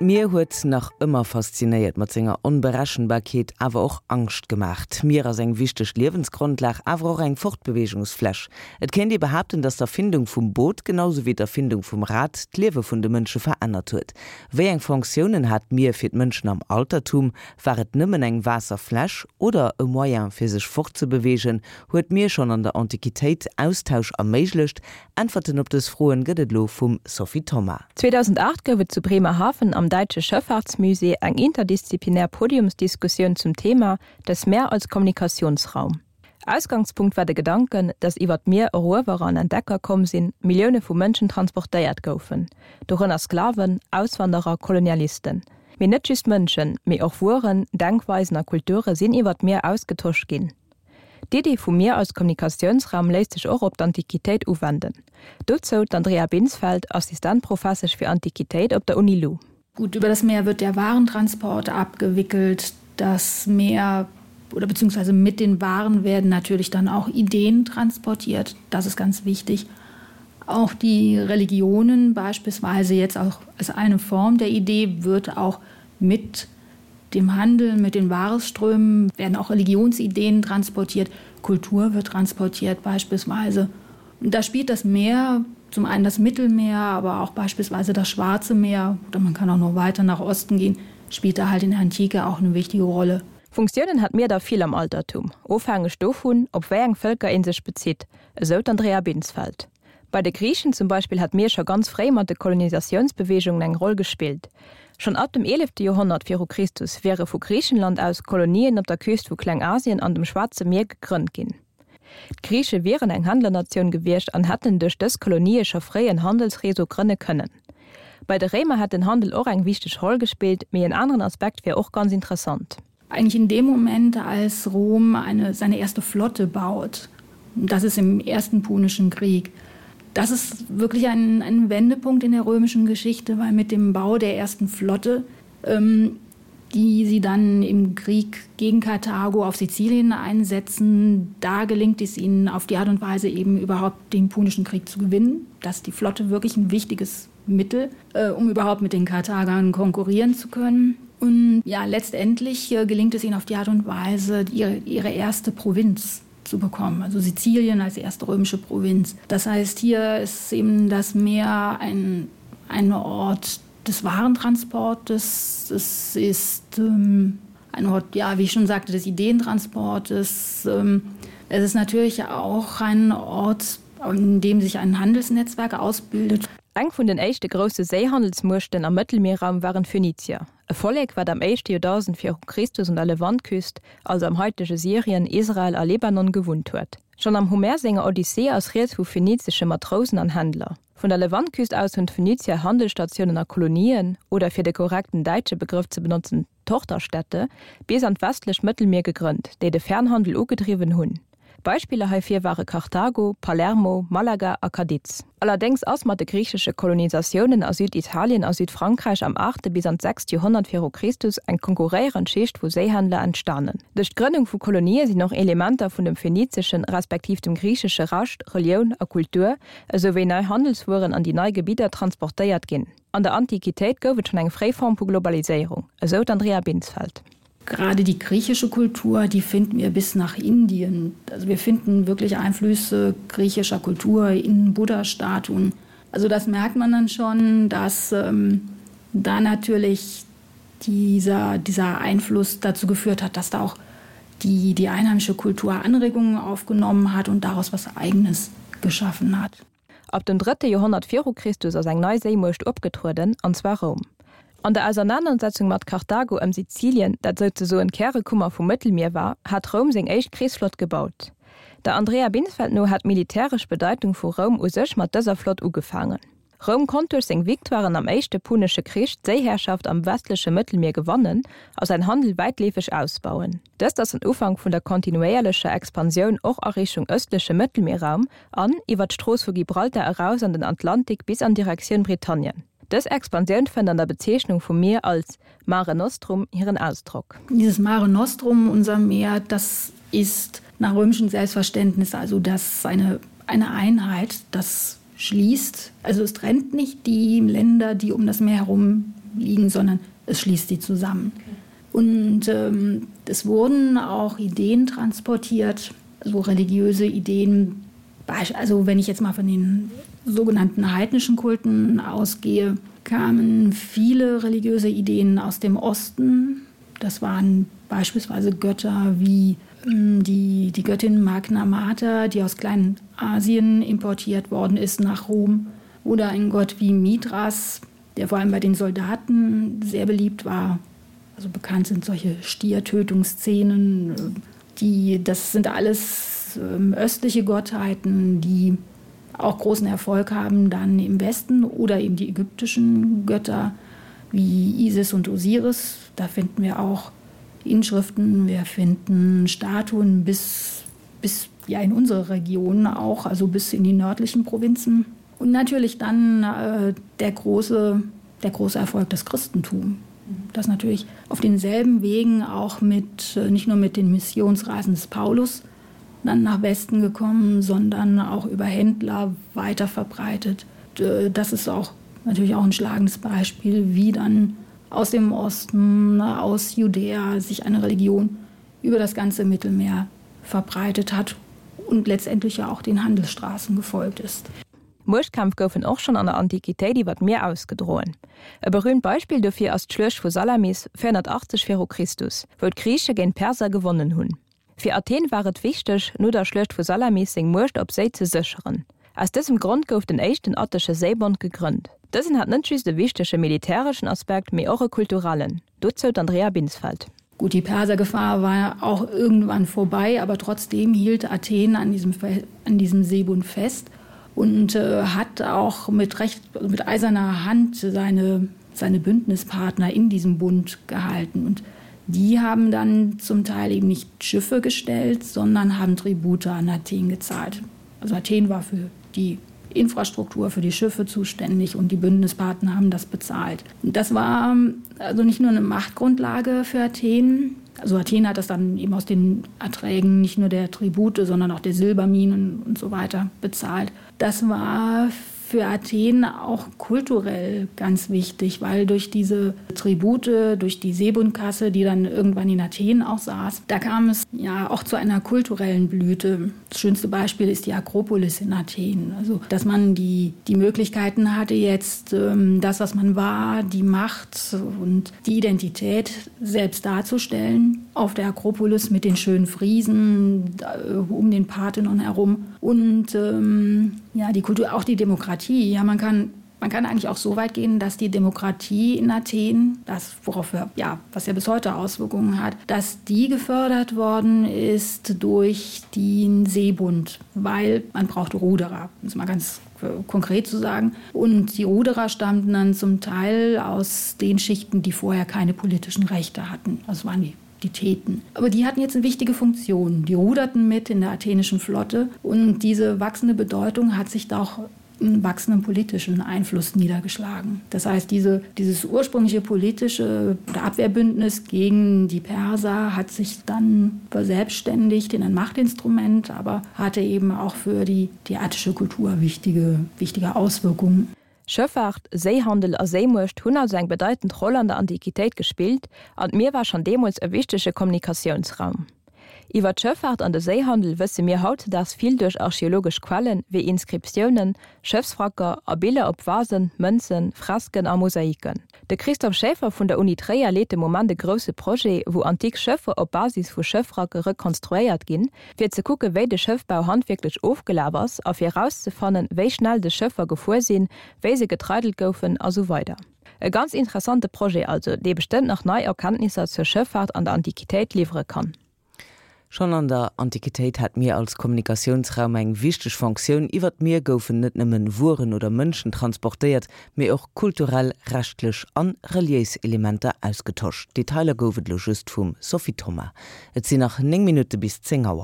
D'Mier huet nach ëmmer faszinéiert mat senger Onberechenbarkeet, awer och Angscht gemaach. D'Mier ass eng wichteg Liewensgrondlag, awer och eng Fortbeweegungsfläch. Et kéint ee behaapten, datt d'Erfindung vum Boot, genau sou wéi d'Erfindung vum Rad, d'Liewe vun de Mënsche verännert huet. Wéi eng Fonctiounen hat d'Mier fir d'Mënschen am Altertum? War et nëmmen eng Waasserfläch oder e Moyen fir sech fortzebeweegen? Huet d'Mier schonn an der Antiquitéit Austausch erméiglecht? Äntwerten op dës Froen gëtt et elo vum Sophie Thoma. 2008 gouf et zu Bremerhaven am Däitsche Schëffahrtsmusée eng interdisziplinär Podiumsdiskussioun zum Thema Das Meer als Kommunikationsraum. Ausgangspunkt war de Gedanken, dass iwwer d'Mier Eruewerer an Entdecker komm sinn, Millioune vu Mënschen transportéiert goufen, dorënner Sklaven, Auswanderer, Kolonialisten. Mee net just Mënschen, mee och Wueren, Denkweisen a Kulture sinn iwwer d'Mier ausgetosch ginn. D'Iddi vum Mier als Kommunikatiounsraum léisst sech och op d'Antiquitéit uwenden. Dozou d'Andrea Binsfeld, Assistentprofessesch fir Antiquitéit op der Uni-Lu. Gut, über das Meer wird der Warentransport abgewickelt. Das Meer oder beziehungsweise mit den Waren werden natürlich dann auch Ideen transportiert. Das ist ganz wichtig. Auch die Religionen beispielsweise jetzt auch als eine Form der Idee wird auch mit dem Handel, mit den Waresströmen werden auch Religionsideen transportiert, Kultur wird transportiert beispielsweise. Und da spielt das Meer, zum einen das Mittelmeer, aber auch beispielsweise das Schwarze Meer oder man kann auch noch weiter nach Osten gehen, spielt da halt in der Antike auch eine wichtige Rolle. Funktiounen hat d'Mier der vill am Altertum, ofhängeg dovun, op wéi eng Vëlker ee sech bezitt, esou d'Andrea Binsfeld. Bei de Griichen zum Beispill hat d'Mier scho ganz fréi mat de Kolonisatiounsbeweegungen eng Roll gespillt. Schonn ab dem eelefte Joerhonnert viru Christus wiere vu Griichenland aus Kolonien op der Küst vu Klengasien an dem Schwaarze Mier gegrënnt ginn. D'Griiche wieren eng Händlernatioun gewiescht an hätten duerch dës Kolonië scho fréi en Handelsreseau grënne kënnen. Bei de Réimer hätt den Handel och eng wichteg Roll gespillt, mee en aneren Aspekt wier och ganz interessant. Eigentlich in dem Moment, als Rom eine, seine erste Flotte baut, das ist im ersten Punischen Krieg. Das ist wirklich ein, ein Wendepunkt in der römischen Geschichte, weil mit dem Bau der ersten Flotte, ähm, die sie dann im Krieg gegen Karthago auf Sizilien einsetzen, da gelingt es ihnen auf die Art und Weise eben überhaupt den Punischen Krieg zu gewinnen, dass die Flotte wirklich ein wichtiges Mittel, äh, um überhaupt mit den Karthagern konkurrieren zu können. Und ja, letztendlich äh, gelingt es ihnen auf die Art und Weise, ihre, ihre erste Provinz zu bekommen, also Sizilien als erste römische Provinz. Das heißt, hier ist eben das Meer ein, ein Ort des Warentransportes. Es ist ähm, ein Ort, ja, wie ich schon sagte, des Ideentransportes. Ähm, es ist natürlich auch ein Ort, an dem sich ein Handelsnetzwerk ausbildet. Eng vun den éischte grousse Séihandelsmuechten am Mëttelmierraum waren d'Phönizier, e Vollek, wat am éischte Joerdausend viru Christus un der Levantküst, also am haitege Syrien, Israel a Libanon, gewunnt huet. Schonn am Homer senger Odyssee ass rieds vu phönizesche Matrousen an Händler. Vun der Levantküst aus hunn d'Phönizier Handelsstatiounen a Kolonien, oder fir de korrekten däitsche Begrëff ze benotzen, Tochterstädte, bis an d'westlecht Mëttelmier gegrënnt, déi de Fernhandel ugedriwwen hunn. Beispiller heifir ware Karthago, Palermo, Malaga a Cadiz. Allerdéngs ass mat de griichesche Kolonisatiounen a Süditalien a Südfrankräich am aachte bis an d'sechst Joerhonnert viru Christus eng konkurréierend Schicht vu Séihändler entstanen. Duerch d'Grënnung vu Kolonië sinn och Elementer vun dem phönizeschen respektiv dem griichesche Recht, Relioun a Kultur, esou wéi nei Handelswueren an déi nei Gebidder transportéiert ginn. An der Antiquitéit gouf et schonn eng fréi Form vu Globaliséierung, esou d'Andrea Binsfeld. Gerade die griechische Kultur, die finden wir bis nach Indien. Also wir finden wirklich Einflüsse griechischer Kultur in Buddha-Statuen. Also das merkt man dann schon, dass ähm, da natürlich dieser, dieser Einfluss dazu geführt hat, dass da auch die, die einheimische Kultur Anregungen aufgenommen hat und daraus was Eigenes geschaffen hat. Ab dem drëtte Joerhonnert viru Christus ass eng nei Séimuecht opgetrueden, an zwar Roum. An der Ausernanersetzung mat Karthago ëm Sizilien, dat souzesoen d'Kärekummer vum Mëttelmier war, hat Roum seng éischt Krichsflott gebaut. Der Andrea Binsfeld no hat d'militäresch Bedeitung vu Roum u sech mat dëser Flott ugefaangen. Roum konnt duerch seng Victoiren am Éischte Punesche Krich d'Séiherrschaft am westleche Mëttelmier gewannen a säin Handel wäitleefeg ausbauen. Dëst ass den Ufank vun der kontinuéierlecher Expansioun och a Richtung ëstleche Mëttelmierraum an iwwer d'Strooss vu Gibraltar eraus an den Atlantik bis an Direktioun Britannien. Dës Expansioun fënnt an der Bezeechnung vum Mier als Mare Nostrum hiren Ausdrock. Dieses Mare Nostrum, unser Meer, das ist nach römischem Selbstverständnis also das eine, eine Einheit, das schließt. Also es trennt nicht die Länder, die um das Meer herum. liegen, sondern es schließt sie zusammen. Und ähm, es wurden auch Ideen transportiert, so religiöse Ideen, also wenn ich jetzt mal von den sogenannten heidnischen Kulten ausgehe, kamen viele religiöse Ideen aus dem Osten. Das waren beispielsweise Götter wie ähm, die, die Göttin Magna Mater, die aus Kleinasien importiert worden ist nach Rom, oder ein Gott wie Mithras, der vor allem bei den Soldaten sehr beliebt war. Also bekannt sind solche Stiertötungsszenen, die, das sind alles ähm, östliche Gottheiten, die auch großen Erfolg haben dann im Westen oder eben die ägyptischen Götter wie Isis und Osiris. Da finden wir auch Inschriften, wir finden Statuen bis, bis ja in unsere Region auch, also bis in die nördlichen Provinzen. Und natürlich dann äh, der, große, der große Erfolg des Christentums das natürlich auf denselben Wegen auch mit äh, nicht nur mit den Missionsreisen des Paulus dann nach Westen gekommen, sondern auch über Händler weiter verbreitet. Äh, das ist auch natürlich auch ein schlagendes Beispiel, wie dann aus dem Osten, aus Judäa sich eine Religion über das ganze Mittelmeer verbreitet hat und letztendlich ja auch den Handelsstraßen gefolgt ist. Muechtkämpf goufen och schonn an der Antiquitéit iwwer d'Mier ausgedroen. E berüümt Beispill dofir ass d'Schluecht vu Salamis, 480 viru Christus, wou d'Griiche géint d'Perser gewonnen hunn. Fir Athen war et wichteg, no der Schluecht vu Salamis seng Muecht op Séi ze sécheren. Aus dësem Grond gouf den éischten attesche Séibond gegrënnt. Dësen hat net just e wichtege militäreschen Aspekt, mee och e kulturellen. Dozou d'Andrea Binsfeld. Gut, die Persergefahr war auch irgendwann vorbei, aber trotzdem hielt Athen an diesem, an diesem Seebund fest und äh, hat auch mit, recht, mit eiserner Hand seine, seine Bündnispartner in diesem Bund gehalten. Und die haben dann zum Teil eben nicht Schiffe gestellt, sondern haben Tribute an Athen gezahlt. Also Athen war für die Infrastruktur für die Schiffe zuständig und die Bündnispartner haben das bezahlt. Das war ähm, also nicht nur eine Machtgrundlage für Athen. Also Athen hat das dann eben aus den Erträgen nicht nur der Tribute, sondern auch der Silberminen und so weiter bezahlt. Das war für Athen auch kulturell ganz wichtig, weil durch diese Tribute, durch die Seebundkasse, die dann irgendwann in Athen auch saß, da kam es ja auch zu einer kulturellen Blüte. Das schönste Beispiel ist die Akropolis in Athen. Also, dass man die, die Möglichkeiten hatte, jetzt ähm, das, was man war, die Macht und die Identität selbst darzustellen auf der Akropolis mit den schönen Friesen äh, um den Parthenon herum und ähm, ja, die Kultur, auch die Demokratie. Ja, man kann, man kann eigentlich auch so weit gehen, dass die Demokratie in Athen, das worauf wir, ja, was ja bis heute Auswirkungen hat, dass die gefördert worden ist durch den Seebund, weil man braucht Ruderer, um es mal ganz äh, konkret zu sagen. Und die Ruderer stammten dann zum Teil aus den Schichten, die vorher keine politischen Rechte hatten. Das waren die die Theten. Aber die hatten jetzt eine wichtige Funktion. Die ruderten mit in der athenischen Flotte und diese wachsende Bedeutung hat sich doch einen wachsenden politischen Einfluss niedergeschlagen. Das heißt, diese, dieses ursprüngliche politische Abwehrbündnis gegen die Perser hat sich dann verselbstständigt in ein Machtinstrument, aber hatte eben auch für die, die attische Kultur wichtige, wichtige Auswirkungen. Schëffaart, Séihandel a Séimuecht hunn also eng bedeitend Roll an der Antiquitéit gespillt an d'Mier war schonn deemools e wichtege Kommunikatiounsraum. Iwwer d'Schëffaart an de Séihandel wësse mir hautzedaags vill duerch archeologesch Quellen, wéi Inscriptiounen, Schëffswracker a Biller op Vasen, Mënzen, Fresken a Mosaiken. De Christophe Schaeffer vun der Uni Tréier leet de Moment e grousse Projet, wou antik Schëffer op Basis vu Schëffwracke rekonstruéiert ginn, fir ze kucke wéi de Schëffbau handwierklech ofgelaf ass a fir erauszefannen, wéi schnell des Schëffer gefuer sinn, wéi se getreidelt goufen a sou weider. E ganz interessante Projet also, dee bestëmmt nach nei Erkenntnisser zur Schëffaart an der Antiquitéit liwwere kann. Schonn an der Antiquitéit hat d'Mier als Kommunikatiounsraum eng wichteg Fonctioun. Iwwer d'Mier goufen net nëmmen Wueren oder Mënschen transportéiert, mee och kulturell, rechtlech an reliéis Elementer ausgetosch. Detailer gouf et elo just vum Sophie Thoma. Et sinn nach 9 Minutte bis 10 Auer.